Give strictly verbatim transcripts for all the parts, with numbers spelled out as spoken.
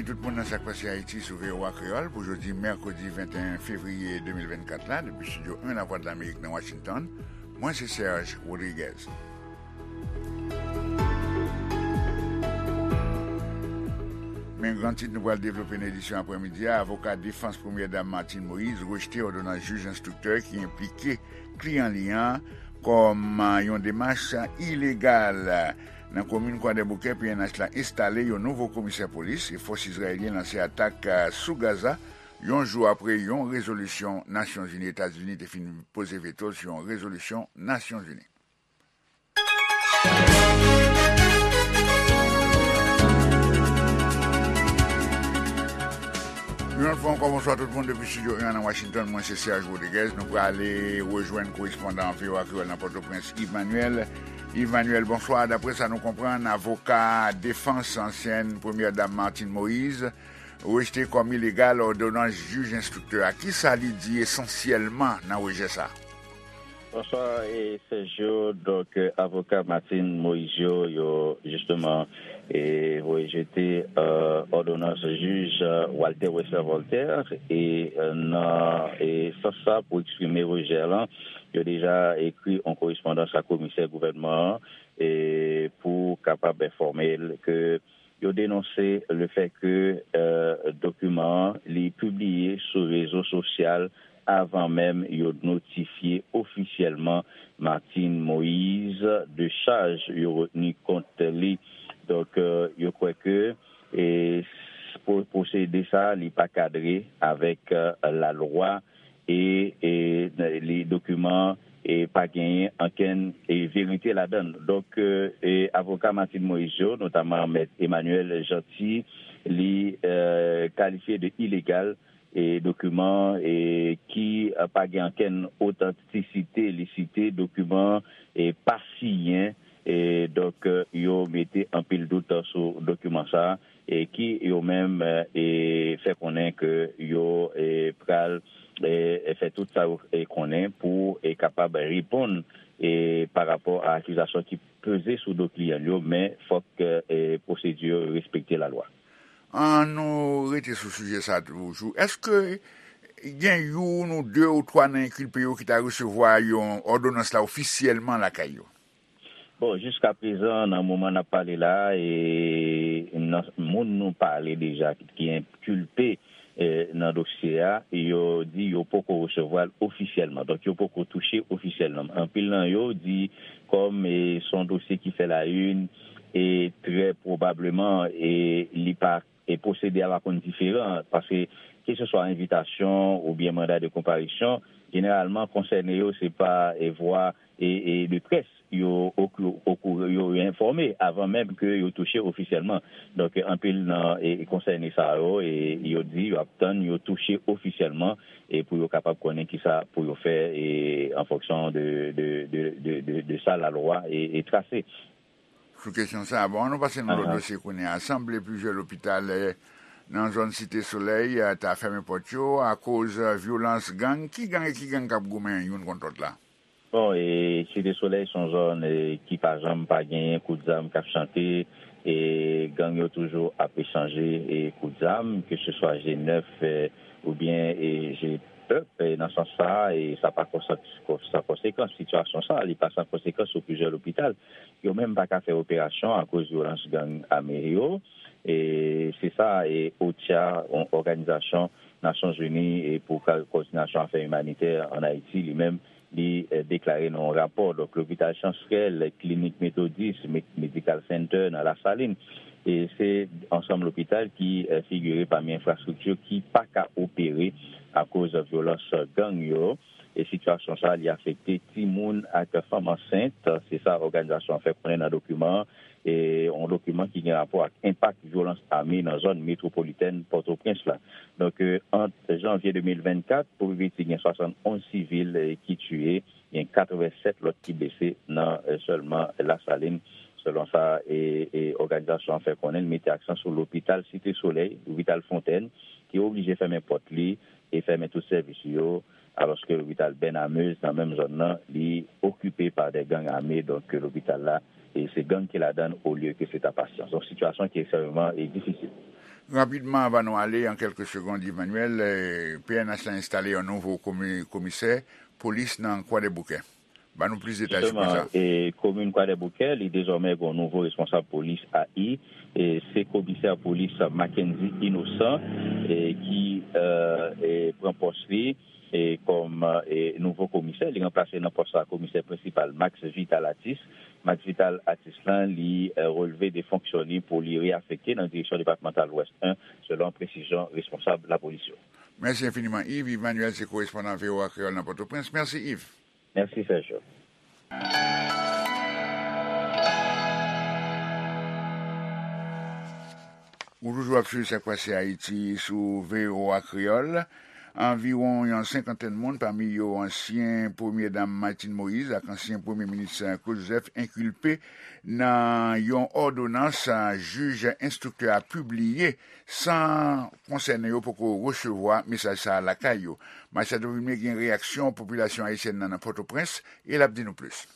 Tout moun nan Sa k Pase Ayiti sou V O A Kreyòl pou jodi mèkredi venteyen fevriye de mil vennkat la, depi Estidyo en Lavwadlamerik nan Washington, mwen se Serge Rodriguez. Men gran tit nou pral devlope nan edisyon aprèmidi a, avoka defans Premyè Dam Martine Moïse rejte òdonans jij enstriktè ki enplike kliyan li an kòm yon demach ilegal. Nan komin Kwadèboukè, P N H la enstale yon nouvo komisè polis e fòs izrayelyen lanse atak sou Gaza, yon jou apre yon rezolisyon Nasyonzini, Etazini te fin poze veto sou yon rezolisyon Nasyonzini. Yon lòt fwa ankò, bonswa tout moun depi Estidyo en nan Washington. Mwen se Serge Rodriguez. Nou prale rejwenn korespondan V O A Kreyòl nan Pòtoprens, Yves Manuel. Yves Manuel, bonswa. Daprè sa nou konprann, avoka defans ansyèn Premyè Dam Martine Moïse rejte kòm ilegal òdonans jij enstriktè a. Kisa li di esansyèlman nan rejè sa a? Bonswa, e, Sergio. Donk, e, avoka Martine Moïse yo, yo, jisteman, e, rejete, e, òdonans jij, e, Walter Wesler Voltaire, e, e, nan, e, sans sa, pou eksprime rejè lan, yo deja ekri yon korespondans a komisè gouvènman an, e, pou kapab enfòme l ke yo denonse le fait que, e, dokiman an, li pibliye sou rezo sosyal avan menm yo notifye ofisyèlman Martine Moïse de chaj yo retni kont li. Donk, e, yo kwè ke, e, s-, pwo-, pwosedi sa, li pa kadre avèk, e, lalwa e, e, li, dokiman, e, pa genyen ankenn, e, verite ladan l. Donk, e, e, avoka Martine Moïse yo, notaman Mèt Emmanuel Jeanty, li, e, kalifye de ilegal, e, dokiman, e, ki, e, pa gen ankenn otantisite, li site dokiman, e, pa siyen, e, donk, e, yo mete anpil dout sou dokiman sa a, e, ki yo menm, e, fè konnen ke yo, e, pral, e, fè tout sa yo, e, konnen pou, e, kapab reponn, e, pa rapò a akizasyon ki peze sou do kliyan yo, men fòk, e, pwosedi yo respekte lalwa. An nou rete sou sijè sa a toujou. Èske gen youn ou de ou twa nan enkilpe yo ki ta resevwa yon òdonans la ofisyèlman lakay yo? Bon, jiskaprezan, nan moman n ap pale la, e, nan moun nou pale deja ki enkilpe, e, nan dosye a, yo di yo poko resevwa l ofisyèlman. Donk, yo poko touche ofisyèlman. Anpil nan yo di, kòm, e, se yon dosye ki fè la une, e trè pwobableman, e, li pa e pwosedi a pa konn diferan, paske keseswa envitasyon oubyen manda de konparisyon, jeneralman konsène yo se pa, e, vwa, e, e, de près yo oku-, oku-, yo enfòme avan menm ke yo touche ofisyèlman. Donk, anpil nan, e, konsène sa yo, e, yo di yo ap tann yo touche ofisyèlman, e, pou yo kapab konnen kisa pou yo fè, e, an fonksyon de, de, de, de, de, de sa lalwa, e, e trase. Sou kesyon sa a, bon, an nou pase nan lòt dosye kounye a. Sanble plizyè lopital, eh, nan zòn Site Solèy, eh, ta fèmen pòt yo akoz, eh, vyolans gang. Ki gang e ki gang k ap goumen youn kont lòt la? Bon, e Site Solèy se yon zòn, e, ki pa janm pa genyen kout zam k ap chante, e gang yo toujou ap echanje, e, kout zam, ke se swa G nèf, e, oubyen, e, G pèp, e, nan sans sa a, e sa pa konsa-, san konsekans. Sitiyasyon sa a, li pa san konsekans sou plizyè lopital. Yo menm pa ka fè operasyon akoz vyolans gang ame yo. E se sa, e OCHA, yon òganizasyon Nasyonzini, e pou ka-, kowòdinasyon afè imanitè ann Ayiti, li menm, li, e, deklare nan yon rapò. Donk, lopital Chansrèl, klinik Metodis, Me-, Medical Center nan Lasalin, e se ansanm lopital ki, e, figire pami enfrastrikti ki pa ka opere akoz vyolans gang yo. E sitiyasyon sa a, li afekte timoun ak fanm ansent. Se sa òganizasyon an fè konnen nan dokiman an, e yon dokiman ki gen rapò ak enpak vyolans ame nan zòn metwopolitèn Pòtoprens la. Donk, e, ant janvye de mil vennkat pou pi piti, gen swasannonz sivil, e, ki tiye, gen katrevennsèt lòt ki blese nan, e, sèlman Lasalin. Selon sa, e, e, òganizasyon an fè konnen, li mete aksan sou lopital Site Solèy, lopital Fontèn, ki oblije fèmen pòt li e fèmen tout sèvis yo, alòske lopital Bènamez nan menm zòn nan, li okipe pa de gang ame, donk lopital la, e se gang ki ladan l olye ke se ta pasyan. Donk sitiyasyon ki ekstrèmeman, e, difisil. Rapidman, anvan nou ale, an kèlke segond, Yves Manuel, eh, P N H la enstale yon nouvo komi-, komisè polis nan Kwadèboukè. Ban nou plis detay sou pwen sa. Jisteman, e, komin Kwadèboukè, li dezòmè gen yon nouvo responsab polis, A I, e, se komisè polis Mackendy Innocent, e, ki, e, e, pran pòs li, e, kòm, e, nouvo komisè. Li ranplase nan pòs sa komisè prensipal Max Vital Atis. Max Vital Atis lan, li, e, relve de fonksyon li pou li reyafekte nan direksyon depatmantal Lwès en, selon presizyon responsab lapolis yo. Mèsi enfiniman, Yves. Yves Manuel se korespondan V O A Kreyòl nan Pòtoprens. Mèsi, Yves. Mèsi, Sergio. Ou toujou ap swiv Sa k Pase Ayiti sou V O A Kreyòl. Anviwon yon senkantèn moun, pami yo ansyen Premye Dam Martine Moïse ak ansyen Premye Minis Claude Joseph, enkilpe nan yon òdonans jij enstriktè a pibliye san konsène yo poko resevwa mesaj sa a lakay yo. Machado Vilmé gen reyaksyon popilasyon ayisyèn nan nan Pòtoprens e l ap di nou plis.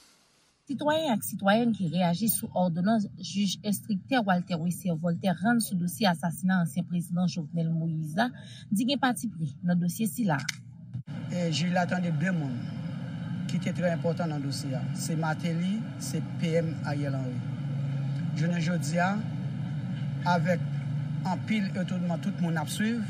Sitwayen ak sitwayèn ki reyaji sou òdonans jij enstriktè Walter Wesser Voltaire rann sou dosye asasina ansyen prezidan Jovenel Moïse la di gen patipri nan dosye sila. E jij la tande de moun ki te trè enpòtan nan dosye a. Se Martelly, se P M Ariel Henry. Jounen jodi a, avèk anpil etonman tout moun ap swiv,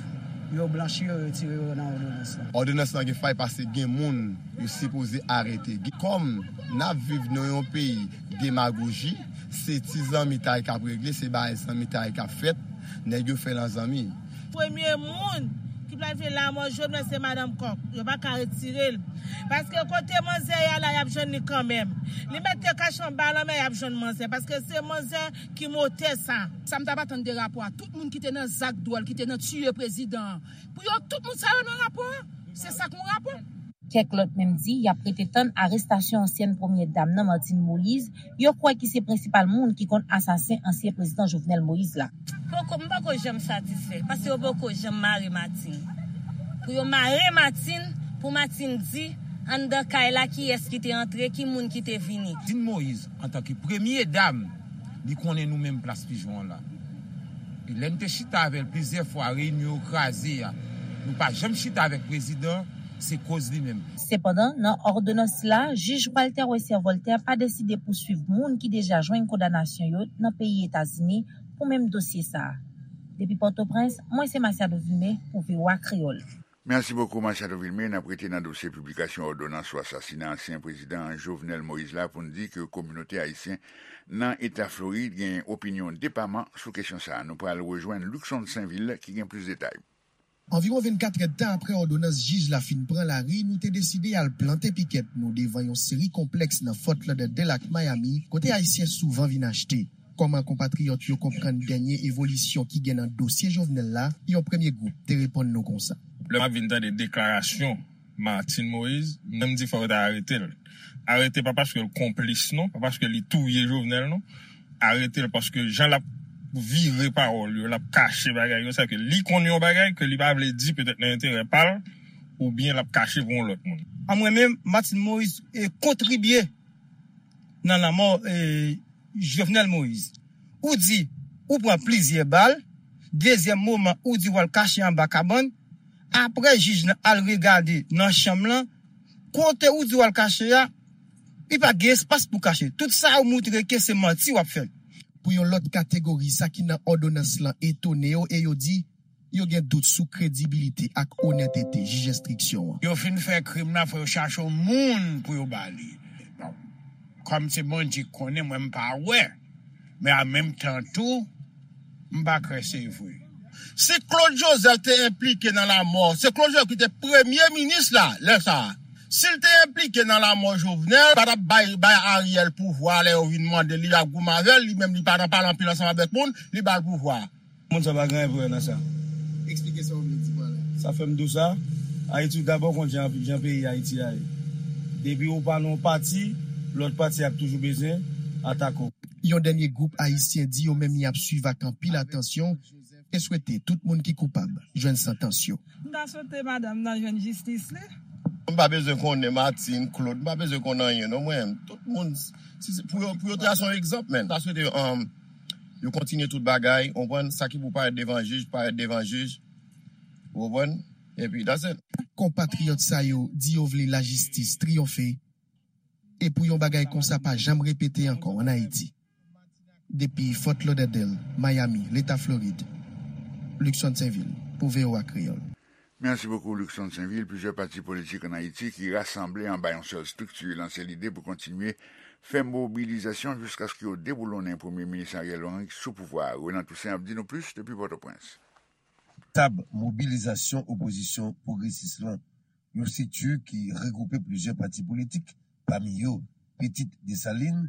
yo blanchi yo, retire yo nan òdonans lan. Òdonans lan gen fay paske gen moun yo sipoze arete. Kòm n ap viv nan yon peyi demagoji, se ti zanmitay k ap regle, se bagay zanmitay k ap fèt, nèg yo fè nan zanmi. Premye moun ki planifye lanmò Jovenel se madanm kòk. Yo pa ka retire l. Paske kote manzè ye a la, y ap jwenn li kanmenm. Li mèt te kache anba lanmè, y ap jwenn manzè. Paske se manzè ki motè sa. Sa m t ap atann de rapò a. Tout moun ki te nan zak dwòl, ki te nan tiye prezidan an. Pou yo, tout moun sa yo nan rapò a. Se sa k yon rapò. Kèk lòt menm di y ap rete tann arestasyon ansyèn premyè dam nan, Martine Moïse, yo kwè ki se prensipal moun ki konn asasen ansyen prezidan Jovenel Moïse la. Poko, m poko janm satisfè, paske yo poko janm mare Martine. Pou yo mare Martine, pou Martine di, anndan kay la, kiyès ki te antre, ki moun ki te vini. Martine Moïse, antanke premye dam, li konnen nou menm Plas Pijon an la. E lè n te chita avè l plizyè fwa, reyinyon yo kraze a, nou pa janm chita avèk prezidan, se koz li menm. Sepandan, nan òdonans sila, jij Walter Wesser Voltaire pa deside pouswiv moun ki deja jwenn kondanasyon yo nan peyi Etazini pou menm dosye sa a. Depi Pòtoprens, mwen se Masiado Vilmé pou V O A Kreyòl. Mèsi bokou, Machado Vilmé. N ap rete nan dosye piblikasyon òdonans sou asasina ansyen prezidan Jovenel Moïse la pou n di ke kominote ayisyen nan Eta Florid gen opinyon depaman sou kesyon sa a. Nou pral rejwenn Luckson Sainvil ki gen plis detay. Anviwon vennkat èdtan apre òdonans jij la fin pran lari, nou te deside al plante pikèt nou devan yon seri konplèks nan Fort Lauderdale ak Miami, kote Ayisyen souvan vin achte. Kòman konpatriyòt yo konprann dènye evolisyon ki gen nan dosye Jovenel la, yon premye gwoup te reponn nou konsa. Lè m ap vin tande deklarasyon Martine Moïse, m di fò yo ta arete l. Arete pa paske l konplis non, pa paske li touye Jovenel non. Arete l paske jan l ap vire pawòl yo, l ap kache bagay yo, sa ke li konn yon bagay ke li pa vle di petèt nan enterè pa l, oubyen l ap kache pou yon lòt moun. A mwen menm, Martine Moïse e kontribye nan lanmò e Jovenel Moïse. Ou di ou pran plizyè bal, dezyèm moman ou di w al kache anba kabann, apre jij lan al regade nan chanm lan, kote ou di w al kache a, li pa gen espas pou kache. Tout sa ou moutre ke se manti w ap fè. Pou yon lòt kategori, sa ki nan òdonans lan etone yo e yo di, yo gen dout sou kredibilite ak onètete jij enstriksyon an. Yo fin fè krim nan, fò yo chache yon moun pou yo ba li. Bon, kòm se Bondye k konnen, mwen m pa wè, men an menm tan tou, m pa kwè se vre. Si Claude Joseph te enplike nan lanmò, se Claude Joseph ki te premye minis la, lè sa a. Si l te enplike nan lanmò Jovenel, pa t ap bay, bay Ariel pouvwa lè yo vin mande li, y ap goumen avè l, li menm li pa nan pale anpil ansanm avèk moun, li ba l pouvwa. Moun sa pa gen enterè nan sa. Eksplike sa w vle di pa la. Sa fè m di w sa, Ayiti w dabò konn jan, jan peyi Ayiti a ye. Depi ou pa nan yon pati, lòt pati ap toujou bezwen atake w. Yon dènye gwoup ayisyen di yo menm y ap swiv ak anpil atansyon e swete tout moun ki koupab jwenn santans yo. M ta swete madanm nan jwenn jistis li. M pa bezwen konnen Martine, Claude, m pa bezwen konn anyen non mwen. Tout moun, si se, pou yo, pou yo trase yon egzanp, men. M ta swete, um, Yo kontinye tout bagay, ou konprann, sa ki pou parèt devan jij, parèt devan jij, ou konprann, epi that's it. Konpatriyòt sa yo di yo vle lajistis triyonfe e pou yon bagay konsa pa janm repete ankò ann Ayiti. Depi Fort Lauderdale, Miami, Leta Florid, Luckson Sainvil, pou V O A Kreyòl. Mèsi bokou, Luckson Sainvil. Plizyè pati politik ann Ayiti ki rasanble anba yon sèl estrikti lanse lide pou kontinye fè mobilizasyon jiskaske yo deboulonnen Premye Minis Ariel Henry sou pouvwa a. Renan Toussaint ap di nou plis depi Pòtoprens. Tab mobilizasyon opozisyon pwogresis lan, yon estrikti ki regwoupe plizyè pati politik, pami yo Pitit Desalin,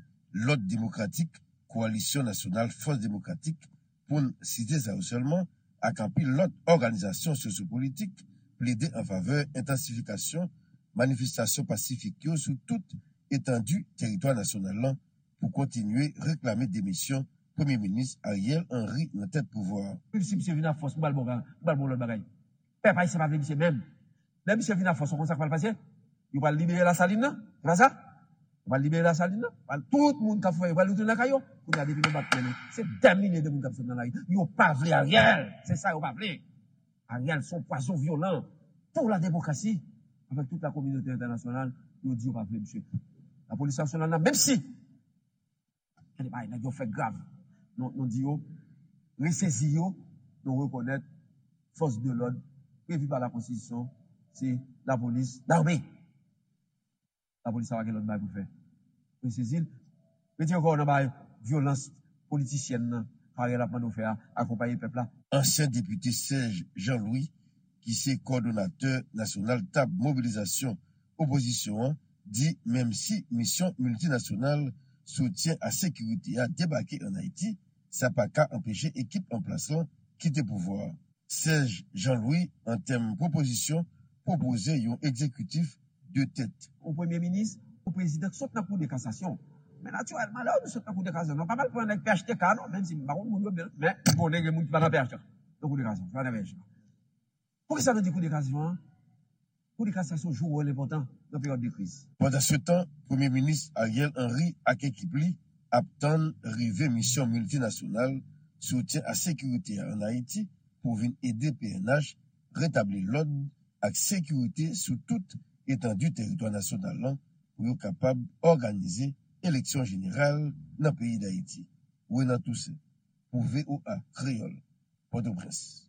Lòd Demokratik, Kowalisyon Nasyonal Fòs Demokratik, pou n site sa yo sèlman, ak anpil lòt òganizasyon sosyopolitik, plede an favè entansifikasyon manifestasyon pasifik yo sou tout etandi teritwa nasyonal lan pou kontinye reklame demisyon Premye Minis Ariel Henry nan tèt pouvwa a. Menm si misye vin ak fòs, m pral ba w, m pral ba w lòt bagay. Pèp ayisyen pa vle misye menm. Lè misye vin ak fòs, ou konn sa k pral pase? Yo pral libere Lasalin nan, se pa sa? Yo pral libere Lasalin nan, pral, tout moun k ap fè, yo pral retounen lakay yo. Kounye a, depi nou bat men nou, se dè milye de moun k ap sot nan lari. Yo pa vle Ariel, se sa yo pa vle. Ariel se yon pwazon vyolan pou la demokrasi. Avèk tout la kominote entènasyonal, yo di yo pa vle misye. Lapolis nasyonal la, menm si Gade bagay nèg yo fè grav. Nou, nou di yo, resezi yo, nou rekonèt fòs de lòd previ pa la konstitisyon, se lapolis, lame. Lapolis sa pa gen lòt bagay pou l fè. Resezi l, retire kò w nan bagay vyolans politisyèn nan, Ariel ap mande w fè a, akonpaye pèp la. Ansyen depite Serge Jean Louis, ki se kòdonatè nasyonal tab mobilizasyon opozisyon an, di menm si misyon miltinasyonal soutyen a sekirite a debake ann Ayiti, sa pa ka anpeche ekip an plas lan kite pouvwa a. Serge Jean Louis, an tèm pwopozisyon, pwopoze yon egzekitif de tèt. Yon premye minis, yon prezidan k sot nan kou de kasasyon. Men natirèlman, lè w di sot nan kou de kasasyon, nou pa pral pran nèg P H T K non, menm si m pa konn moun yo byen, men m konnen gen moun ki pa nan P H T K, nan kou de kasasyon, ki pa nan P H T K. Poukisa nou di kou de kasasyon an? Kou de kasasyon jwe yon wòl enpòtan nan peryòd de kriz. Pandansetan, Premye Minis Ariel Henry ak ekip li ap tann rive misyon miltinasyonal soutyen a sekirite a ann Ayiti pou vin ede P N H retabli lòd ak sekirite sou tout etandi teritwa nasyonal lan pou yo kapab òganize eleksyon jeneral nan peyi Dayiti. Renan Toussaint, pou V O A Kreyòl, Pòtoprens.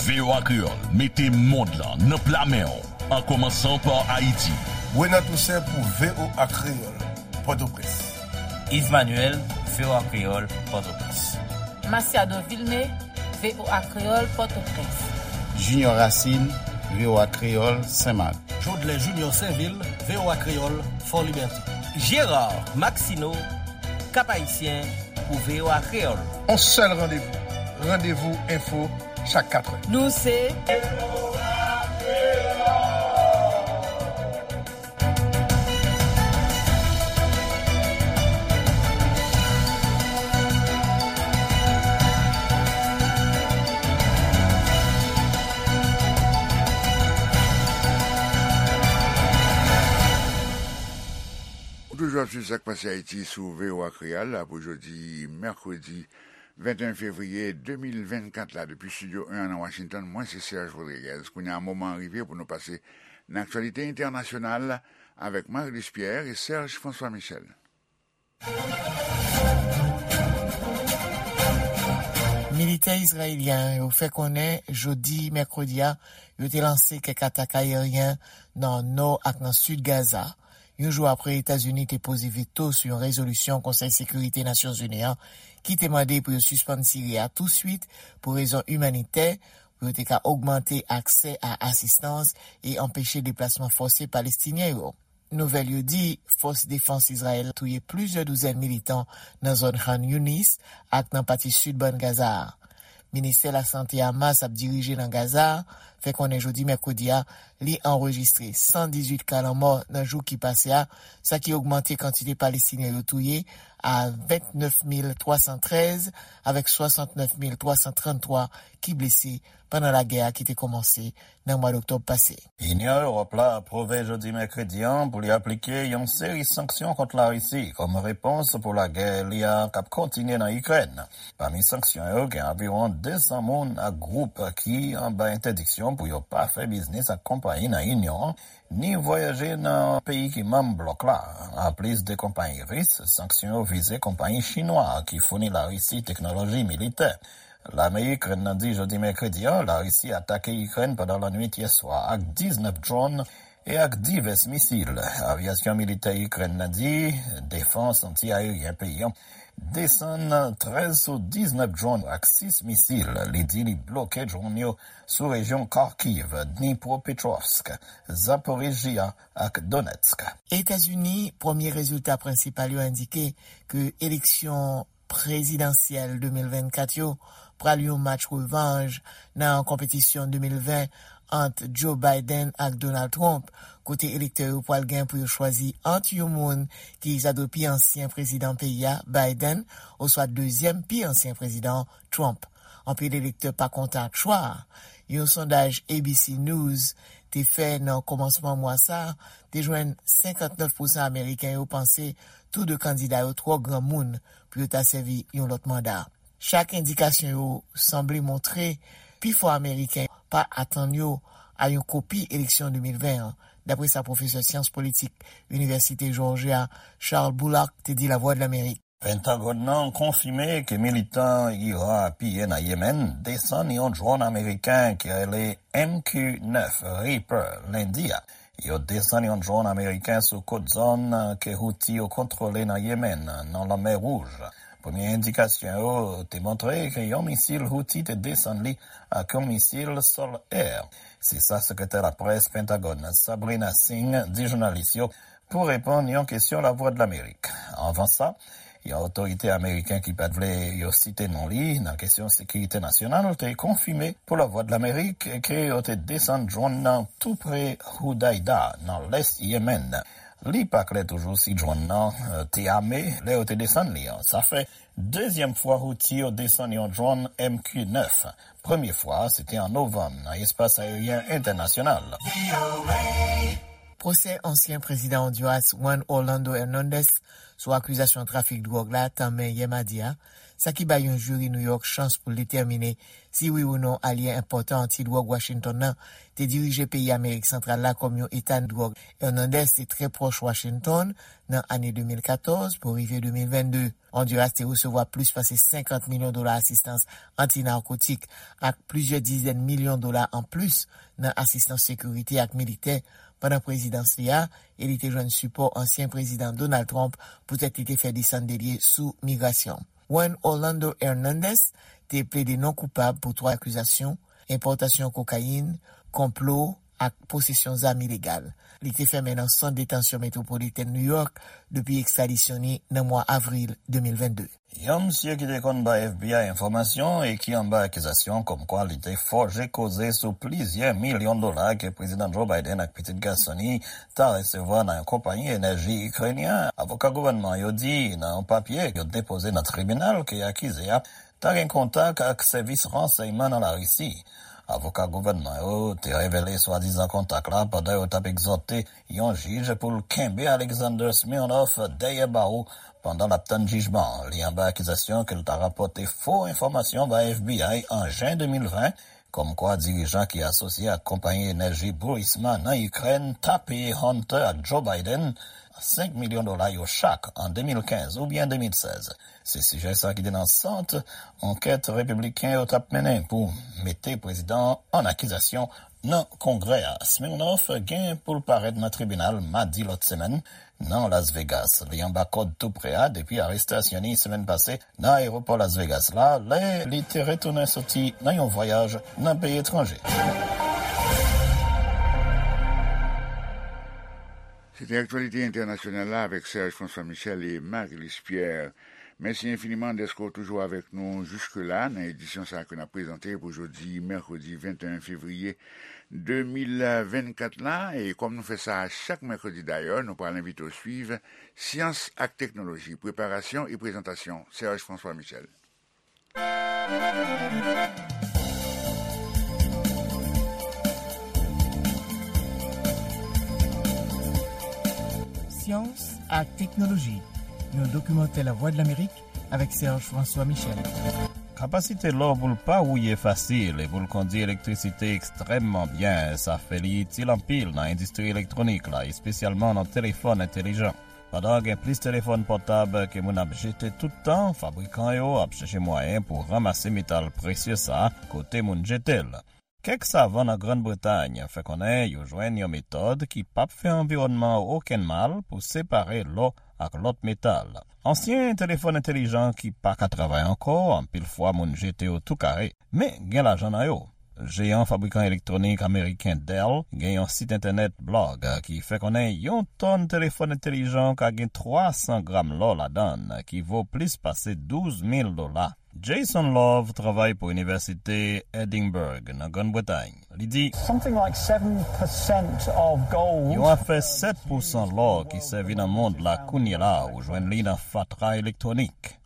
V O A Kreyòl mete mond lan nan pla men w, an kòmansan pa Ayiti. Renan Toussaint pou V O A Kreyòl, Pòtoprens. Yves Manuel, V O A Kreyòl, Pòtoprens. Masiado Vilmé, V O A Kreyòl, Pòtoprens. Junior Racine, V O A Kreyòl, Senmak. Jodlè Junior Sainvil, V O A Kreyòl, Fò Libète. Gérard Maxineau, Cap Haïtien, pou V O A Kreyòl. On sèl randevou, Randevou Enfo, chak katrè. Nou se Ou toujou ap swiv Sa k Pase Ayiti sou V O A Kreyòl la pou jodi mèkredi venteyen fevriye de mil vennkat la, depi Estidyo en an nan Washington, mwen se Serge Rodriguez. Kounye a, moman an rive pou nou pase nan aktyalite entènasyonal avèk Marie-Luce Pierre e Serge François Michel. Militè izrayelyen yo fè konnen jodi mèkredi a, yo te lanse kèk atak ayeryen nan nò ak nan sid Gaza, yon jou apre Etazini te poze veto sou yon rezolisyon Konsèy Sekirite Nasyonzini an ki te mande pou yo sispann tire a touswit pou rezon imanitè, pou yo te ka ogmante aksè a asistans e anpeche deplasman fòse Palestinyen yo. Nouvèl yo di, fòs defans Izrayèl touye plizyè douzèn militan nan zòn Khan Younis ak nan pati sid bann Gaza a. Ministè Lasante Hamas ap dirije nan Gaza a fè konnen jodi mèkredi a, li anrejistre san dizuit ka lanmò nan jou ki pase a, sa ki ogmante kantite Palestinyen yo touye a vennèf mil twa san trèz, avèk swasantnèf mil twa san tranntwa ki blese pandan lagè a ki te kòmanse nan mwa doktòb pase. Inyon Ewòp la apwouve jodi mèkredi an pou li aplike yon seri sanksyon kont Larisi kòm repons pou lagè li a k ap kontinye nan Ikrèn. Pami sanksyon yo, gen anviwon de san moun ak gwoup ki anba entèdiksyon pou yo pa fè biznis ak konpayi nan Inyon an, ni vwayaje nan peyi ki manm blòk la. Anplis de konpayi ris, sanksyon yo vize konpayi chinwa ki founi Larisi teknoloji militè. Lame Ikrèn nan di jodi mèkredi an, Larisi atake Ikrèn pandan lannwit yèswa ak diznèf dwòn e ak divès misil. Avyasyon militè Ikrèn nan di defans anti-ayeryen peyi an desann trèz sou diznèf dwòn ak sis misil. Li di li bloke dwòn yo sou rejyon Kharkiv, Dnipropetrovsk, Zaporizhzhia ak Donetsk. Etazini, premye rezilta prensipal yo endike ke eleksyon prezidansyèl de mil vennkat yo pral yon match revanj nan konpetisyon de mil ven ant Joe Biden ak Donald Trump, kote elektè yo pral gen pou yo chwazi ant yon moun ki ta dwe pi ansyen prezidan peyi a, Biden, oswa dezyèm pi ansyen prezidan, Trump. Anpil elektè pa kontan ak chwa a. Yon sondaj A B C News te fè nan kòmansman mwa sa a te jwenn senkantnèf pousan Ameriken yo panse tou de kandida yo twò granmoun pou yo ta sèvi yon lòt manda. Chak endikasyon yo sanble montre pifò Ameriken pa atann yo a yon kopi eleksyon de mil ven an, dapre sa pwofesè syans politik Inivèsite Jòjya Charles Bullock te di Lavwadlamerik. Pentagòn nan konfime ke militan Iran apiye nan Yemen desann yon dwòn ameriken ki rele M Q nèf Reaper lendi a. Yo desann yon dwòn ameriken sou kot zòn ke Houthi yo kontwole nan Yemen, nan Lanmè Wouj. Premye endikasyon yo te montre ke yon misil Houthi te desann li ak yon misil sòl-è. Se sa sekretè laprès Pentagòn, Sabrina Singh, di jounalis yo pou reponn yon kesyon Lavwadlamerik. Anvan sa, yon otorite ameriken ki pa t vle yo site non li nan kesyon sekirite nasyonal te konfime pou Lavwadlamerik ke yo te desann dwòn nan tou pre Hudaida, nan lès Yemen. Li pa klè toujou si dwòn nan, eh, te ame lè yo te desann li an. Sa fè dezyèm fwa Houthi yo desann yon dwòn M Q nèf. Premye fwa a, se te an novanm nan espas ayeryen entènasyonal. Pwosè ansyen prezidan Ondiras Juan Orlando Hernandez sou akizasyon trafik dwòg la tanmen yè madi a, sa ki bay yon jiri New York chans pou l detèmine si wi ou non alye enpòtan anti-dwòg Washington nan te dirije peyi Amerik Santral la kòm yon eta dwòg. Hernandez te trè pwòch Washington nan ane de mil katòz pou rive de mil vennde. Ondiras te resevwa plis pase senkant milyon dola asistans anti-narkotik ak plizyè dizèn milyon dola anplis nan asistans sekirite ak militè pandan prezidans li a, e li te jwenn sipò ansyen prezidan Donald Trump poutèt li te fè desann de lye sou migrasyon. Juan Orlando Hernandez te plede non koupab pou twa akizasyon: enpòtasyon kokayin, konplo ak posesyon zam ilegal. Li te fèmen nan sant detansyon metwopolitèn New York depi ekstradisyon li nan mwa avril de mil vennde. Yon msye ki te konn bay F B I enfòmasyon e ki anba akizasyon kòmkwa li te fòje koze sou plizyè milyon dola ke Prezidan Joe Biden ak pitit gason li ta resevwa nan yon konpayi enèji ikrenyen, avoka gouvènman yo di nan yon papye yo depoze nan tribinal ke akize a ta gen kontak ak sèvis ransèyman nan Larisi. Avoka gouvènman yo te revele swadizan kontak la pandan yo t ap egzòte yon jij pou l kenbe Alexander Smirnov dèyè bawo pandan l ap tann jijman an. Li anba akizasyon ke l ta rapòte fo enfòmasyon bay F B I an jen de mil ven, kòmkwa dirijan ki asosye ak konpayi enèji Burisma nan Ikrèn ta peye Hunter ak Joe Biden senk milyon dola yo chak an de mil kenz oubyen de mil sèz. Se sijè sa ki te nan sant ankèt repibliken yo t ap mennen pou mete prezidan an an akizasyon nan Kongrè a. Smirnov gen pou l parèt nan tribinal madi lòt semèn nan Las Vegas. Li anba kòd tou pre a depi arestasyon li semèn pase nan ayewopò Las Vegas la, lè li te retounen soti nan yon vwayaj nan peyi etranje. Se te aktyalite entènasyonal la avèk Serge François Michel e Marie-Luce Pierre. Mèsi enfiniman dèske w toujou avèk nou jiske la nan edisyon sa a ke n ap prezante pou jodi mèkredi venteyen fevriye de mil vennkat la, e kòm nou fè sa chak mèkredi dayè, nou pral envite w swiv Syans ak Teknoloji, preparasyon e prezantasyon Serge François Michel. Syans ak Teknoloji, yon dokimantè Lavwadlamerik avèk Serge François Michel. Kapasite lò pou l pa wouye fasil e pou l kondui elektrisite ekstrèmman byen, sa fè li itil anpil nan endistri elektwonik la, espesyalman nan telefòn entèlijan. Pandan gen plis telefòn pòtab ke moun ap jete tout tan, fabrikan yo ap chèche mwayen pou ranmase metal presye sa a kote moun jete l. Kèk savan nan Grann Bretay fè konnen yo jwenn yon metòd ki p ap fè anviwònman an okenn mal pou separe lò ak lòt metal. Ansyen telefòn entèlijan ki pa ka travay ankò, anpil fwa moun jete yo tou kare, men gen lajan nan yo. Jeyan fabrikan elektwonik ameriken Dell gen yon sit entènèt blòg ki fè konnen yon tòn telefòn entèlijan ka gen twa san gram lò ladan l, ki vo plis pase douz mil dola. Jason Love travay pou Inivèsite Edinburgh nan Grann Bretay. Li di, Something like seven percent of gold. Yon afè sèt pousan lò ki sèvi nan mond la kounye la, ou jwenn li nan fatra elektwonik.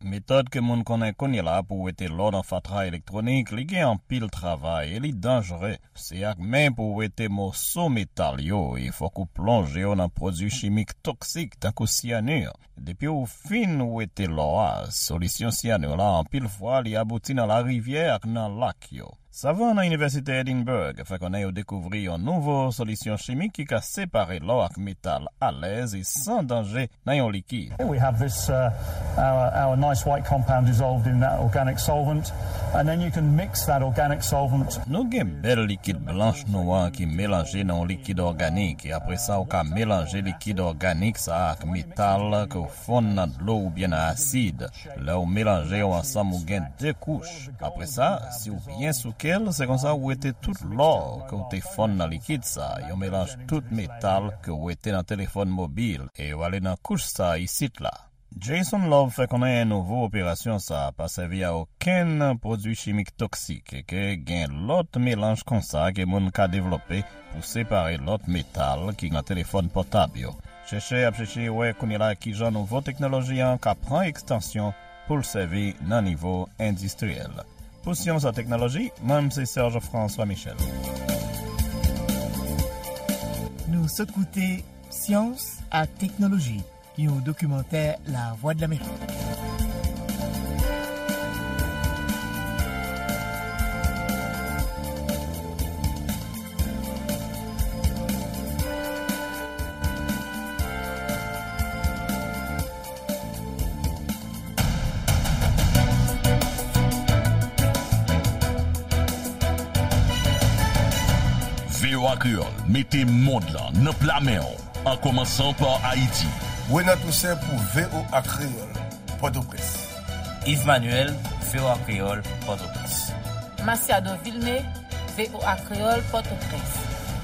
Metòd ke moun konnen kounye la pou wete lò nan fatra elektwonik, li gen anpil travay e li danjere. Se ak men pou w wete moso metal yo, e fòk ou plonje yo nan pwodui chimik toksik, tankou syanir. Depi w fin wete lò a, solisyon syanir la, anpil fwa, li abouti nan larivyè ak nan lak yo. Savan nan Inivèsite Edinburgh fè konnen yo dekouvri yon nouvo solisyon chimik ki ka separe lò ak metal alèz e san danje nan yon likid. Here we have this, uh, our, our nice white compound dissolved in that organic solvent, and then you can mix that organic solvent. Nou gen bèl likid blanch nou an ki melanje nan yon likid òganik, e apre sa, ou ka melanje likid òganik sa a ak metal ke w fonn nan dlo oubyen nan asid. Lè w melanje yo ansanm, ou gen de kouch. Apre sa, si w byen souke l, se konsa w wete tout lò ke w te fonn nan likid sa, yon melanj tout metal ke w wete nan telefòn mobil, e yo ale nan kouch sa isit la. Jason Love fè konnen nouvo operasyon sa pa sèvi a okenn pwodui chimik toksik e ke gen lòt melanj konsa ke moun ka devlope pou separe lòt metal ki nan telefòn pòtab yo. Chèchè ap chèche wè kounye la kijan nouvo teknoloji an ka pran ekstansyon pou l sèvi nan nivo endistriyèl. Pou Syans ak Teknoloji, mwen se Serge François Michel. Nou sot koute Syans ak Teknoloji, yon dokimantè Lavwadlamerik. V O A Kreyòl mete mond lan nan pla men w, an kòmansan pa Ayiti. Renan Toussaint pou V O A Kreyòl, Pòtoprens. Yves Manuel, V O A Kreyòl, Pòtoprens. Masiado Vilmé, V O A Kreyòl, Pòtoprens.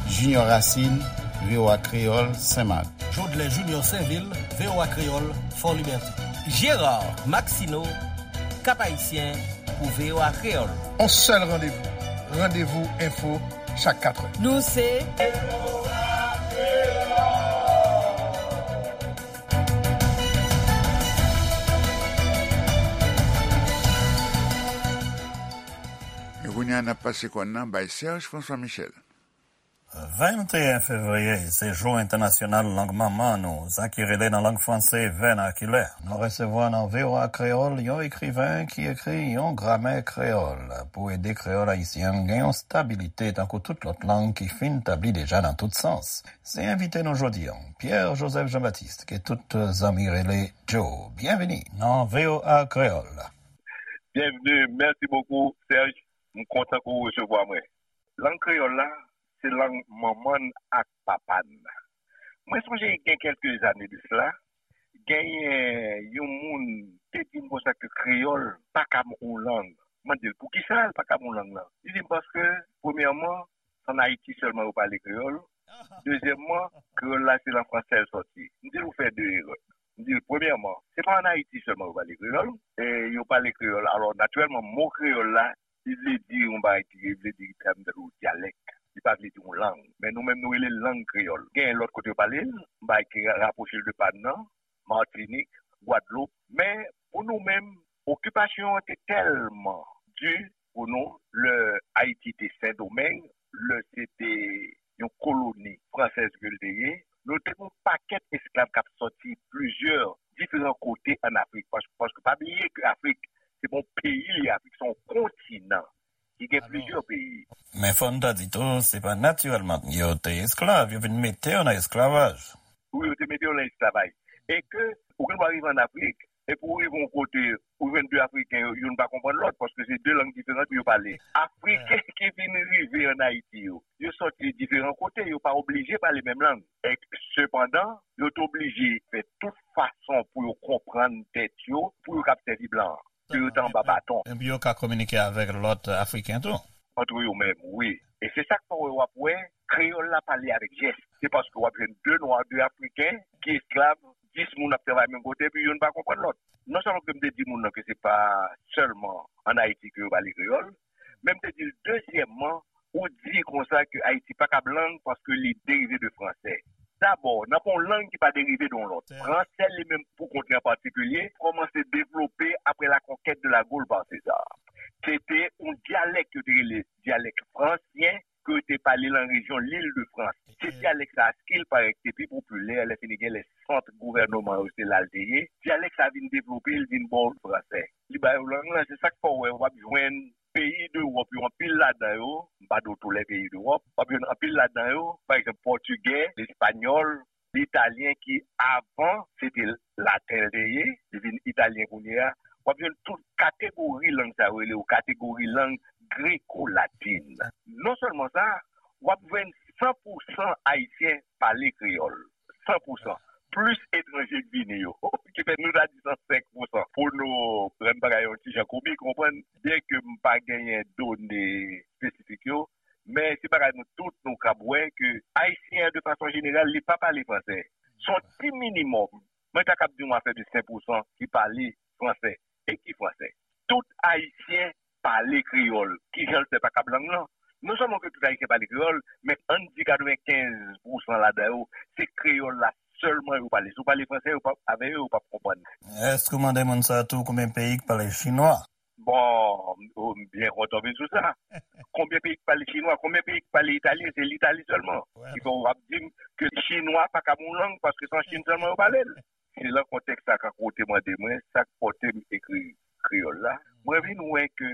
Junior Racine, V O A Kreyòl, Senmak. Jodlè Junior Sainvil, V O A Kreyòl, Fòlibète. Gérard Maxineau, Cap-Haïtien, pou V O A Kreyòl. On sèl randevou, Randevou Enfo, chak katrè. Nou se E kounye a, n ap pase kòn nan bay Serge François Michel. Venteyen fevriye, se Jou Entènasyonal Lang Manman nou, sa ki rele nan lang franse vènakilè. Nou resevwa nan V O A Kreyòl yon ekriven ki ekri yon gramè kreyòl pou ede kreyòl ayisyen an gen yon stabilite tankou tout lòt lang ki fin tabli deja nan tout sans. Se envite nou jodi an, Pierre Joseph Jean-Baptiste, ke tout zanmi rele Joe. Byenvini nan V O A Kreyòl. Bienvenue, merci beaucoup, Serge. M kontan ke w resevwa mwen. Lang kreyòl la, se lang manman n ak papa n. Mwen sonje gen kèlke zane de sila, genyen yon moun te di m konsa ke kreyòl pa ka yon lang. Mwen di l, "Poukisa l pa ka yon lang nan?" Li di m, "Paske, premyèman, se ann Ayiti sèlman yo pale kreyòl. Dezyèmman, kreyòl la se nan fransè l sòti." M di l, "Ou fè de erè." M di l, "Premyèman, se pa ann Ayiti sèlman yo pale kreyòl. E yo pale kreyòl. Alò, natirèlman, mo kreyòl la, li vle di yon bagay ki vle di tèm tankou dyalèk." li pa vle di yon lang. Men nou menm, nou rele l lang kreyòl. Gen lòt kote yo pale l, m pa ki rapwoche l de pa n nan, Matinik, Gwadloup. Men, pou nou menm, okipasyon an te tèlman di pou nou, lè Ayiti te Sendomeng, lè se te yon koloni fransèz ke l te ye, nou te gen yon pakèt esklav k ap sòti plizyè diferan kote ann Afrik. Pas-, paske pa bliye ke Afrik, se pa yon peyi li ye, Afrik se yon kontinan ki gen plizyè peyi. Men fò n ta di tou, se pa natirèlman yo te esklav, yo vin mete yo nan esklavaj. Wi, yo te mete yo nan esklavaj. E ke ou gen dwa rive ann Afrik, epi ou rive yon kote, ou jwenn de Afriken, yo, youn pa konprann lòt, paske se de lang diferan ke yo pale. Afriken ki vin rive ann Ayiti yo, yo sòti diferan kote, yo pa oblije pale menm lang. E sepandan, yo te oblije fè tout fason pou yo konprann tèt yo, pou yo kab sèvi blan an, ke yo te anba baton. Epi yo ka kominike avèk lòt Afriken tou. Antre yo menm, wi. E se sa k fè w wè, w ap wè, kreyòl la pale avèk jès. Se paske w ap jwenn de nwa, de Afriken ki esklav, dis moun ap travay menm kote, epi youn pa konprann lòt. Non sèlman ke m te di moun nan ke se pa sèlman ann Ayiti ke yo pale kreyòl, men m te di l, dezyèmman, ou di konsa ke Ayiti pa kab lang paske li derive de fransè. Dabò, nan pa yon lang ki pa derive de yon lòt. Fransè li menm pou kont li an patikilye kòmanse devlope apre la conquête de la Gaule par César. Se te yon dyalèk yo te rele dyalèk fransyen ke yo te pale nan rejyon Lil de Frans. Se dyalèk sa a, Skil parèt, te pi popilè, lè fini gen lè sant gouvènman yo se la l te ye. Dyalèk sa a vin devlope, l vin bon fransè. Li ba yo lang lan, se sa k fè w wè w ap jwenn peyi dewòp yo, anpil ladan yo, m pa di w tou lè peyi dewòp, w ap jwenn anpil ladan yo, pa egzanp, pòtigè, espanyòl, italyen ki avan se te laten l te ye, li vin italyen kounye a, w ap jwenn tout kategori lang sa yo rele yo kategori lang greko-latin. Non sèlman sa, w ap jwenn san pou san Ayisyen pale kreyòl. San pou san. Plis etranje k vini yo. Ki fè nou ta di san senk pou san. Pou nou rann bagay yon ti jan komik, konprann, byenke m pa genyen done espesifik yo, men se bagay nou tout nou kab wè ke Ayisyen an, de fason jeneral, li pa pale fransè. Se yon ti minimòm. Mwen ta kab di yon afè de senk pou san ki pale fransè. E ki fransè? Tout Ayisyen pale kreyòl. Kijan l fè pa kab lang lan? Non sèlman ke tout Ayisyen pale kreyòl, men ann di katrevenkenz pou san ladan yo, se kreyòl la sèlman yo pale. Si w pale fransè, yo p ap, avè yo, yo p ap konprann. Èske w mande moun sa tou konbyen peyi k pale chinwa? Bon, m byen kontan w vin sou sa. Konbyen peyi k pale chinwa? Konbyen peyi k pale italyen? Se Litali sèlman. Ki fè w ap di m ke chinwa pa kab yon lang paske se an Chin sèlman yo pale l. Se lan kontèks sa, kankou w te mande mwen sa k pòte m ekri kreyòl la, mwen vin wè ke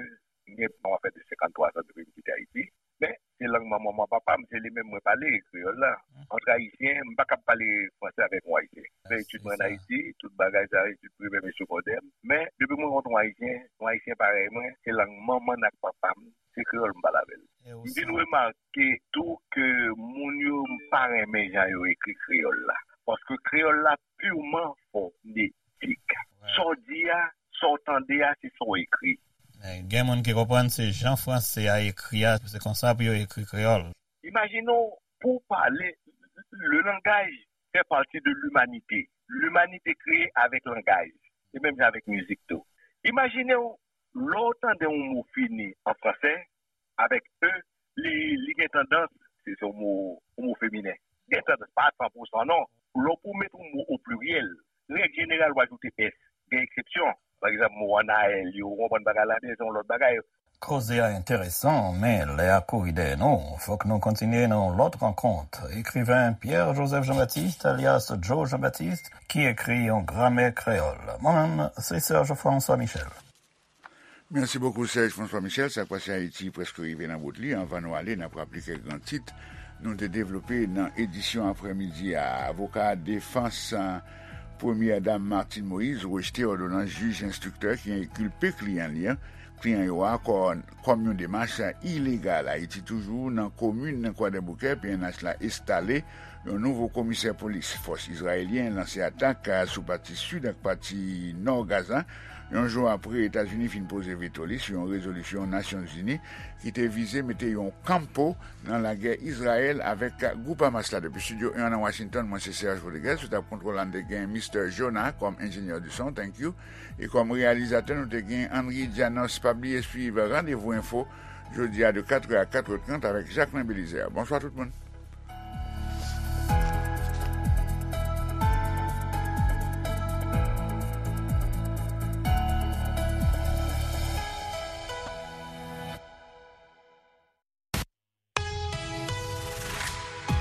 m gen yon afè de senkanntwa zan depi m kite Ayiti. Men, se lang manman m ak papa m, se li menm mwen pale, kreyòl la. Antre Ayisyen, m pa kab pale fransè avèk yon Ayisyen. M fè etid mwen ann Ayiti, tout bagay sa, etid primè m e segondè m. Men, depi m rankontre yon Ayisyen, yon Ayisyen parèy mwen, se lang manman n ak papa m, se kreyòl m pale avè l. M vin remake tou ke moun yo pa renmen jan yo ekri kreyòl la. Paske kreyòl la purman fonetik. Sa w di a, sa w tande a, se sa w ekri. Men gen moun ki konprann se jan franse a ekri a, se konsa pou yo ekri kreyòl. Imajine w, pou w pale, le langage fait partie de l'humanité. L'humanité kreye avèk langaj. E menm jan avèk mizik tou. Imajine w, lè w tande yon mo fini an franse, avèk e, li, li gen tandans, se, se yon mo, yon mo feminen. Gen tandans, pa san pou san non. Lè w pou w mete yon mo o pliryèl, règ jeneral, w ajoute s. Gen eksepsyon. Pa egzanp, mo anayèl yo, ou konprann bagay la, men se yon lòt bagay. Koze a enteresan, men lè a kouri dèyè nou. Fòk nou kontinye nan yon lòt rankont. Ekriven Pierre Joseph Jean-Baptiste, alyas Joe Jean-Baptiste, ki ekri yon gramè kreyòl. Mwen menm, se Serge François Michel. Mèsi bokou, Serge François Michel. Sa k pase Ayiti prèske rive nan bout li. Anvan nou ale, n ap raple kèk gran tit nou te devlope nan edisyon aprèmidi a. Avoka defans, a, Premyè Dam Martine Moïse rejte òdonans jij enstriktè ki enkilpe kliyan li an, kliyan yo a, kò-, kòm yon demach ilegal. Ayiti toujou, nan komin Kwadèboukè, P N H la enstale yon nouvo komisè polis. Fòs izrayelyen lanse atak, a, sou pati sid ak pati nò Gaza, yon jou apre Etazini fin poze veto li sou yon rezolisyon Nasyonzini ki te vize mete yon kanpo nan lagè Izrayèl avèk gwoup Hamas la. Depi estidyo en nan Washington, mwen se Serge Rodriguez, sou tab kontwòl la, n te gen Mister Jonah kòm enjenyè di son, thank you. E kòm reyalizatè, nou te gen Henry Janos. Pa bliye swiv Randevou Enfo jodi a de katrè a katrè trant avèk Jacquelin Belizaire. Bonswa tout moun.